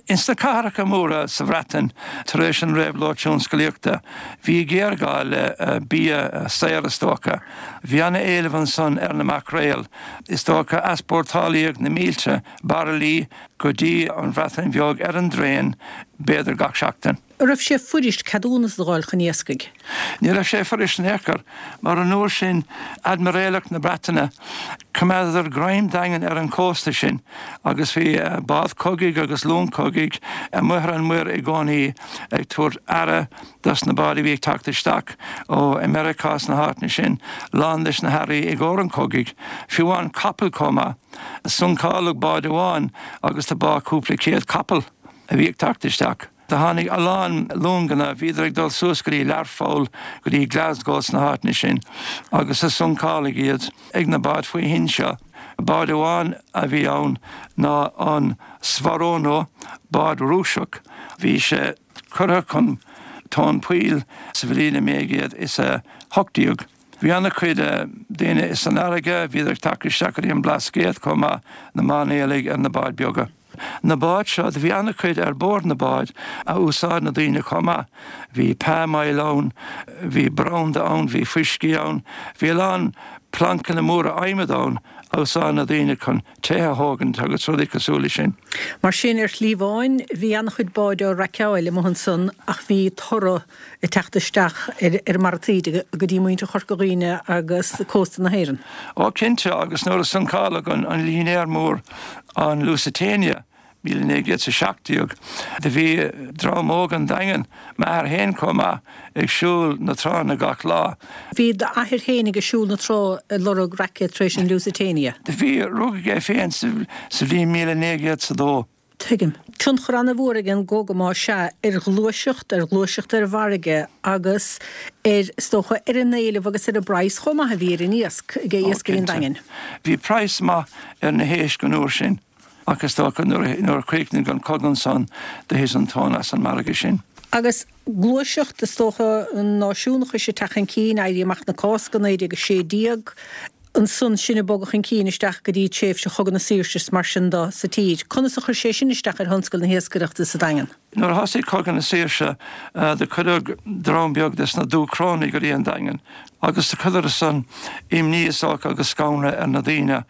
ins na cathracha móra sa Bhreatain tar éis an réabhlóid tionscalaíochta bhí géarghá le bia saor is dócha. Bhí ana-éileamh ansan ar na maicréil. Is dócha easpórtálaíodh na mílte bairillí go dtí an Bhreatain Bheag ar an dtraein b'fhéidir gach seachtain. An raibh sé fuirist ceadúnas a dh'fháil chun iascaigh? Ní raibh sé fuirist in aon chor, mar an uair sin, Aidmiréalacht na Breataine, choimeádadar greim daingean ar an chósta sin agus bhí bád cogaidh agus long cogaidh amuigh ar an muir i gcónaí ag tabhairt aire dos na báid a bhí ag teacht isteach ó Meiriceá is na háiteanna sin, lán leis na hearraí i gcomhair an chogaidh, fiú amháin capaill chomh maith. Suncáladh bád amháin agus do bádh cúpla céad capall a bhí ag teacht isteach. Do tháinig a lán longanna, bhíodar ag dul suas go dtí Learpholl, go dtí Glasgow sna háiteanna sin agus do suncáladh iad ag na báid faoi thoinn seo. Bád amháin a bhí ann ná an Swarono, bád Rúiseach. Bhí sé curtha chun tóin poill sa bhliain 1918. Bhí ana-chuid daoine san fharraige, bhíodar ag teacht isteach go dtí an Blascaod chomh maith, na mairnéalaigh ar na báid beaga. Na báid seo, do bhí ana-chuid ar bord na báid a úsáid na daoine chomh maith. Bhí palm oil ann, bhí branda ann, bhí fuiscí ann, bhí a lán plancanna móra adhmaid ann a úsáid na daoine chun tithe a thógaint agus rudaí cosúil le sin. Mar sin, ar shlí amháin, bhí ana-chuid báid á raiceáil amuigh ansan ach bhí toradh ag teacht isteach ar an mbarra taoide go dtí muintir Chorca Dhuibhne agus cósta na hÉireann. Ó cinnte, agus nuair a suncáladh an línéar mór an Lusitania 1917 do bhí dream óg an Daingin, m'athair féin chomh maith, ag siúl na tránna gach lá. Bhí d'athair féin ag siúl na trá ag lorg raice tar éis an Lusitania? Do bhí, rugadh é féin sa bhliain 1902. Tuigim. Tionchar an-mhór ag an gcogadh más ea, ar ghluaiseacht, ar ghluaiseacht ar an bhfarraige agus ar, is dócha, ar an éileamh agus ar an bpraghas chomh maith a bhí ar an iasc, ag Ó, iascairí an cinnte. Daingin. Bhí praghas maith ar na héisc an uair sin ach is dócha nuair a chríochnaigh an cogadh ansan do thit an tóin as an margadh sin. Agus gluaiseacht, is dócha, an náisiúnachais ag teacht chun cinn, Éirí Amach na Cásca 1916, ansan sin ag bogadh chun cinn isteach go dtí tréimhse Chogadh na Saoirse is mar sin de sa tír. Conas a chuir sé sin isteach ar thionscal na hiascaireachta sa Daingean? Nuair a thosaigh Cogadh na Saoirse do cuireadh dream beag des na Dúchrónaigh go dtí an Daingean agus do chuireadar san imní is dócha agus scanradh ar na daoine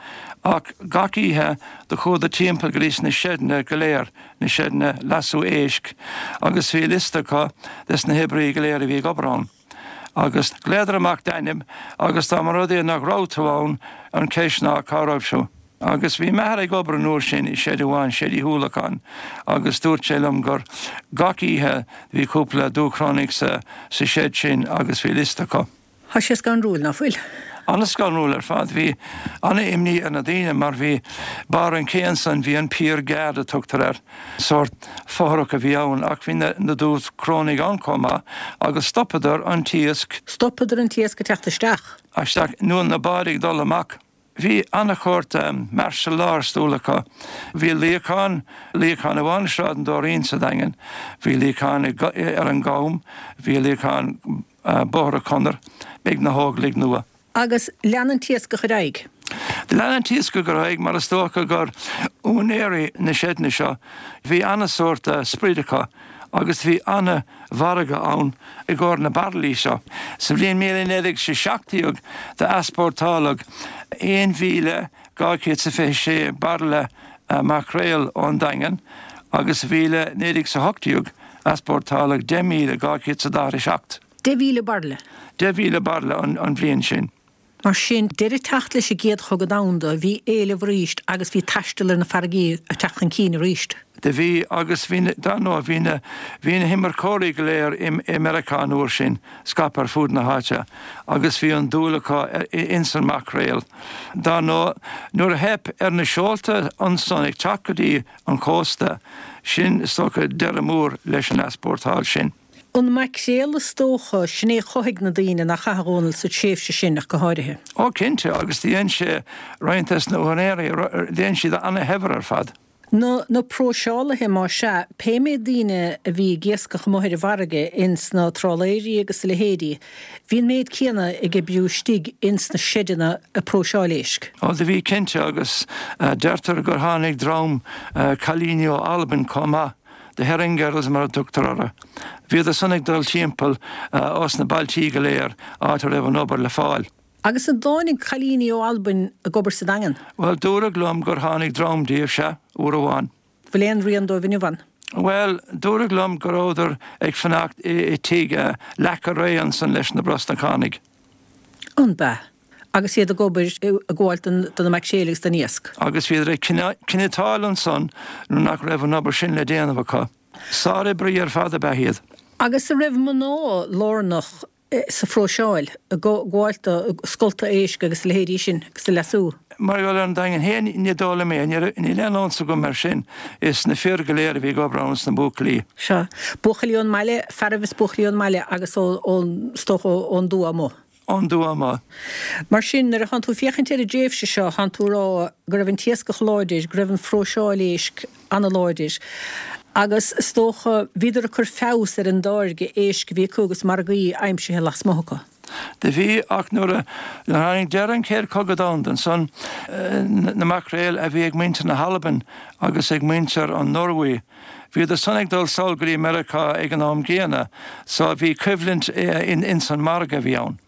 ach gach oíche do chuadar timpeall go dtí sna seideanna go léir, na seideanna leasú éisc agus bhí liosta acu des na hoibrithe go léir a bhí ag obair ann. Agus ghlaodar amach d'ainm agus dá mba rud é nach raibh tú ann, an cheist ná cá raibh tú. Agus bhí m'athair ag obair an uair sin i seid amháin, seid Uí Shúilleabháin, agus dúirt sé liom gur gach oíche bhí cúpla Dúchrónaigh sa seid sin agus bhí liosta acu. Tá sé scanrúil, ná fuil? An-scanrúil ar fad. Bhí an-imní ar na daoine mar bhí barr an ché ansan, bhí an Pier Guard a tugtar air, sórt fothrach a bhí ann ach bhí na Dúchrónaigh ann chomh maith agus stopadar an t-iasc. Stopadar an t-iasc ag teacht isteach. Isteach, nó na báid ag dul amach. Bhí an-shórt martial law ar siúl acu. Bhí luíochán, luíochán amháin i Sráid an Dóirín sa Daingean, bhí luíochán ar an gCam, bhí luíochán Bóthar an Chonair ag na hÓglaigh Nua. Agus lean an t-iascach ar aghaidh. Lean an t-iascach ar aghaidh mar is dócha gur úinéirí na seideanna seo, bhí an-sórt sprid acu agus bhí an-mhargadh ann i gcomhair na bairillí seo. Sa bhliain 1917 d'easpórtáladh 1,226 bairille maicréal ón Daingean agus sa bhliain 1918 easpórtáladh 10,247. 10,000 bairille? 10,000 bairille an bhliain sin. Mar sin, deireadh ag teacht leis an gCéad Chogadh Domhanda, bhí éileamh arís agus bhí taisteal ar na farraigí ag teacht chun cinn arís. Do bhí, agus bhí na, dar ndóigh, bhí na, bhí na himirceoirí go léir i, i Meiriceá an uair sin, scaipthe ar fud na háite, agus bhí an dúil acu ins an maicréal. Dar ndóigh, nuair a theip ar na seolta ansan ag teacht go dtí an cósta, sin, is dócha, deireadh mór leis an easpórtáil sin. An maicréal is dócha, sin é a chothaigh na daoine, nach ea, a Dhónaill, sa tréimhse sin ach go háirithe. Ó cinnte, agus do dhein sé roinnt des na húinéirí, dhein siad ana-shaibhir ar fad. Na na próiseálaithe, más ea, pé méid daoine a bhí ag iascach amuigh ar an bhfarraige, ins na trálaeirí agus a leithéidí, bhí an méid céanna ag oibriú istigh ins na seideanna ag próiseáil éisc. Ó do bhí cinnte, agus deirtear gur tháinig dream cailíní ó Albain chomh maith. The Herring Girls mar a tugtar orthu. Bhíodar san ag dul timpeall os na bailtí go léir áit a raibh an obair le fáil. Agus an dtáinig cailíní ó Albain ag obair sa Daingean? Bhuel, dúradh liom gur tháinig dream díobh, sea, uair amháin. Bhfuil aon rian dóibh inniu ann? Bhuel, dúradh liom go rabhadar ag fanacht i dtigh Leaca Réidh ansan leis na Brosnachánaigh. An b'ea? Agus iad ag obair, ag gabháil do na maicréil agus don iasc. Agus bhíodar ag cniotáil ansan nuair nach raibh an obair sin le déanamh acu. Sároibrí ar fad ab ea iad. Agus an raibh mná lárnach sa phróiseáil, ag gabháil do scolta éisc agus a leithéidí sin agus a leasú? Mar gheall ar an Daingean féin, ní dóigh liom é. Níl aon eolas agam air sin. Is na fir go léir a bhí ag obair ann is na buachaillí. Sea. Buachaillí ón mbaile, fearaibh is buachaillí ón mbaile agus ón, is dócha, ón dtuath amuigh. Ón dtuath amuigh. Mar sin, nuair a thánn tú ag féachaint ar an dtréimhse seo, thánn tú ag rá go raibh an t-iascach láidir, go raibh an phróiseáil éisc an-láidir, agus is dócha, bhíodar ag cur feabhas ar an dtáirge éisc a bhí acu agus margaí aimsithe lasmuigh acu. Do bhí, ach nuair a tháinig deireadh an Chéad Chogadh Domhanda ansan, na maicréil a bhí ag muintir na hAlban agus ag muintir an Norway, Bhíodar san ag dul sall go dtí Meiriceá ag an am gcéanna so bhí coimhlint ins an margadh a bhí ann.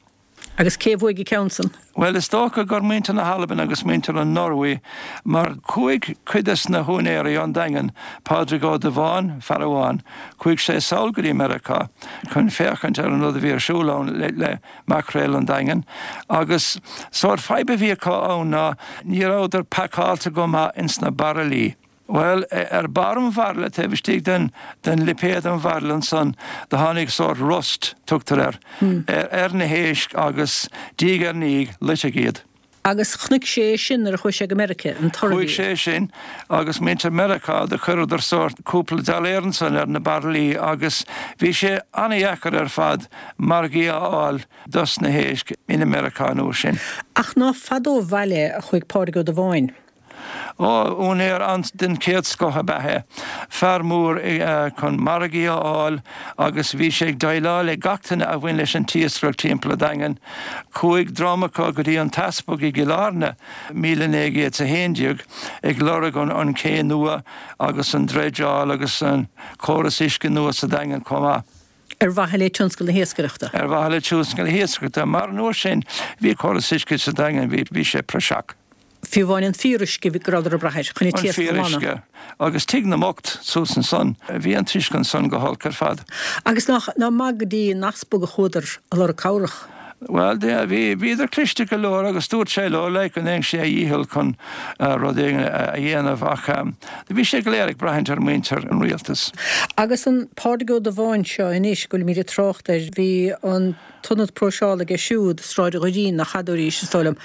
Agus cé a bhuaigh an ceann san? Bhuel is dócha gur muintir na hAlban agus muintir an Norway mar chuaigh cuid des na húinéirí ón Daingean, Pádraig Ó Dubháin, fear amháin, chuaigh sé sall go dtí Meiriceá chun féachaint ar an rud a bhí ar siúl ann le maicréal an Daingin agus sórt fadhb a bhí acu ann ná ní rabhadar pacáilte go maith ins na bairillí. Bhuel, ar barr an bhairille, taobh istigh den, den lipéad an bhairille ansan, do tháinig sórt rust, tugtar air, ar na héisc agus diaidh ar ndiaidh, loiteadh iad. Agus chonaic sé é sin nuair a chuaigh sé go Meirice, an toradh a bhí. Chuaigh sé sin, agus muintir Meiriceá, do chuireadar sórt cúpla dollar ansan ar na bairillí agus bhí sé ana-dheacair ar fad margaí a fháil dos na héisc in Meiriceá an uair sin. Ach ná fada ó bhaile a chuaigh Pádraig Ó Dubháin. Ó, úinéir den chéad scoth ab ea é. Fear mór chun margaí a fháil agus bhí sé ag déileáil le gach duine a bhain leis an t-iascaireacht timpeall an Daingin. Chuaigh dream acu go dtí an t-easpag i gCill Airne, 1911, ag lorg an ché nua agus an dreideáil agus an córas uisce nua sa Daingean chomh maith. Ar mhaithe le tionscal na hiascaireachta. Ar mhaithe le tionscal na hiascaireachta, mar an uair sin bhí córas uisce sa Daingean, bhí sé praiseach. Fiú amháin an fíoruisce go rabhadar ag brath air chun an An t-iasc a ghlanadh. fíoruisce. Agus Tigh na mBocht suas ansan. Bhí an t-uisce ansan go holc ar fad. Agus nach maith go dtí an easpag a chuadar ag lorg cabhrach. Bhuel, bhí, bhíodar cliste go leor agus dúirt sé leo, like, go ndéanfadh sé a dhícheall chun rud éigin a dhéanamh ach bhí sé go léir ag braithint ar mhuintir an rialtais. Agus an Pádraig Ó Dubháin seo anois go bhfuilimid ag trácht air, bhí an. t-ionad próiseála aige siúd, Sráid Dhoirín, nach fhada arís, is dóigh liom.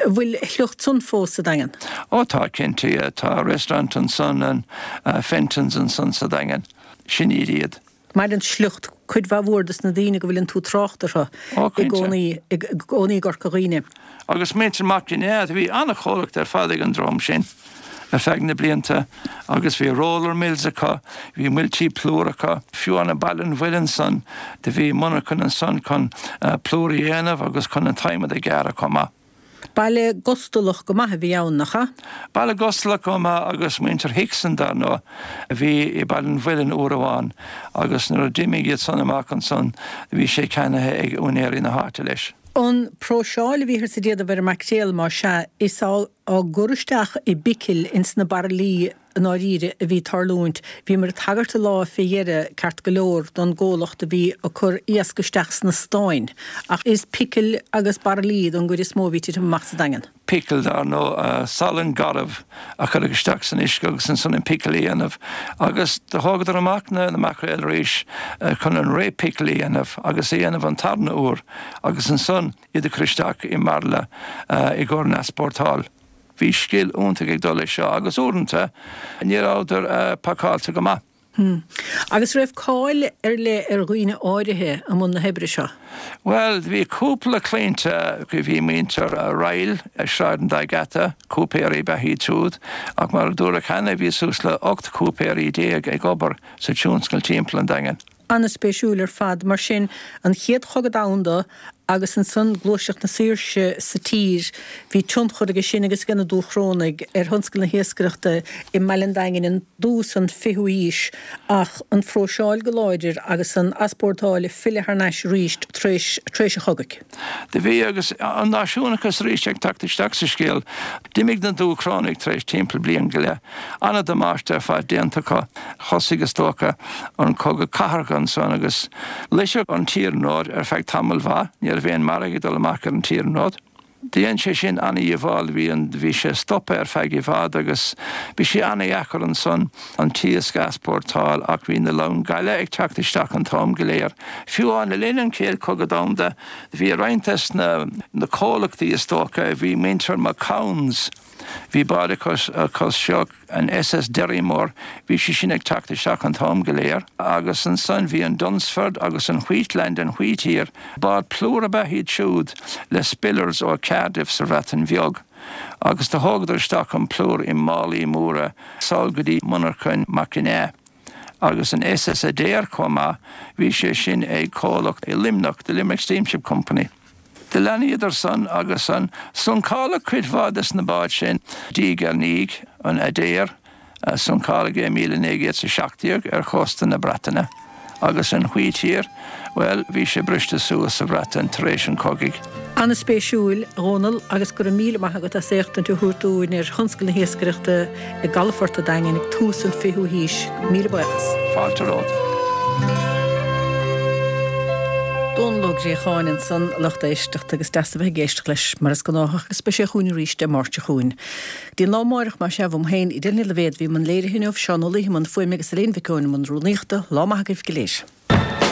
An bhfuil a shliocht san fós sa Daingean? Ó tá, cinnte, yeah. Tá restaurant ansan, an Fenton's ansan sa Daingean. Sin iad iad. Maireann sliocht cuid mhaith mhór dos na daoine go bhfuileann tú ag trácht orthu Ó, i cinnte. gcónaí, i gcónaí i gCorca Dhuibhne. Agus muintir Mac Ginneá, bhí an-chomhlacht ar fad ag an dream sin ar feadh na blianta agus bhí roller mills acu, bhí muiltí plúir acu, fiú amháin i Baile an Mhuilinn ansan, do bhí monarchan ansan chun plúr a dhéanamh agus chun an t-adhmad a ghearradh chomh maith. Baile gustalach go maith a bhí ann, nach ea? Baile gustalach go maith agus muintir Hickson, dar ndóigh, a bhí i Baile an Mhuilinn uair amháin agus nuair a d'imigh iad san amach ansan do bhí sé ceannaithe ag úinéirí na háite leis. An próiseáil a bhíothas ag déanamh ar an maicréal, más ea, is á gcur isteach i bpicil ins na bairillí. i ndáiríre a bhí ag tarlúint. Bhíomar ag tagairt an lá fé dheireadh, ceart go leor, don gcomhlacht a bhí ag cur iasc isteach sna stáin. Ach is picil agus bairillí don gcuid is mó a bhí ag titim amach sa Daingean. Picil, dar ndóigh, salann garbh a cuireadh isteach san uisce agus ansan an picil a dhéanamh. Agus do thógadar amach na maicréil arís chun an re-picil a dhéanamh agus a dhéanamh an tarna uair agus ansan iad a chur isteach i mbairille i gcomhair an easpórtáil. Bhí scil iontach ag dul leis seo agus uaireanta ní rabhadar pacáilte go maith. Hm. Agus raibh cáil ar leith ar dhaoine áirithe i mbun na hoibre seo? Bhuel, bhí cúpla cliaint, bhí muintir Ryle i Sráid an Dá Gheata, cúipéirí ab ea iad siúd, ach mar a dúradh cheana bhí suas le 18 cúipéirí ag obair sa tionscal timpeall an Daingin. An-spéisiúil ar fad. Mar sin, an Chéad Chogadh Domhanda agus ansan Gluaiseacht na Saoirse sa tír, bhí tionchar aige sin agus aige na Dúchrónaigh ar thionscal na hiascaireachta i mbaile an Daingin i dtús an fichiú haois ach an phróiseáil go láidir agus an easpórtáil ag filleadh thar n-ais arís tar éis an chogaidh. Do bhí agus an náisiúnachas arís ag teacht isteach sa scéal. D'imigh na Dúchrónaigh tar éis timpeall bliain go leith. An-damáiste ar fad déanta acu. Thosaigh, is dócha, an cogadh cathartha ansan agus loiteadh an t-iarnród ar feadh tamaill mhaith. Ní raibh aon margadh ag dul amach ar an t-iarnród. Dhein sé sin an-dhíobháil. Bhí an, bhí sé stoptha ar feadh i bhfad agus bhí sé an-dheacair ansan an t-iasc a easpórtáil ach bhí na long gaile ag teacht isteach an t-am go léir. Fiú amháin le linn an Chéad Chogadh Domhanda bhí roinnt des na na comhlachtaí is dócha, bhí muintir McCown's, Bhí bád acu seo, an SS Derrymore, bhí sí sin ag teacht isteach an t-am go léir agus ansan bhí an Dunsford agus an Wheatland an Wheatear, bád plúir ab ea iad siúd le spillers ó Cardiff sa Bhreatain Bheag agus do thógadar isteach an plúr i málaí móra sall go dtí monarchain McInea agus an SS Adair chomh maith, bhí sé sin ag comhlacht i Luimneach, The Limerick Steamship Company. Do leanadar san agus san. Suncáladh cuid mhaith des na báid sin diaidh ar ndiaidh, an Adair, suncáladh é i 1917 ar chósta na Breataine, agus an Wheatear, bhuel, bhí sé briste suas sa Bhreatain tar éis an chogaidh. An-spéisiúil, a Dhónaill, agus go raibh míle maith agat as éachtaint a thabhairt dúinn ar thionscal na hiascaireachta i gcalafort an Daingin ag tús an fichiú haois. Míle buíochas. Fáilte romhat. Dónall Ó Gréacháin ansan, a lucht éisteachta, agus deas a bheith ag éisteacht leis mar is gnáthach agus beidh sé chugainn arís Dé Máirt seo chugainn. Go dtí an lá amáireach, más ea, uaim féin, Edel Ní Loibhéad, a bhí i mbun léirithe inniu, Seán Ó Laoi i mbun fuaime agus Elaine Mhic Eoin i mbun rúnaíochta. Lá maith agaibh go léir.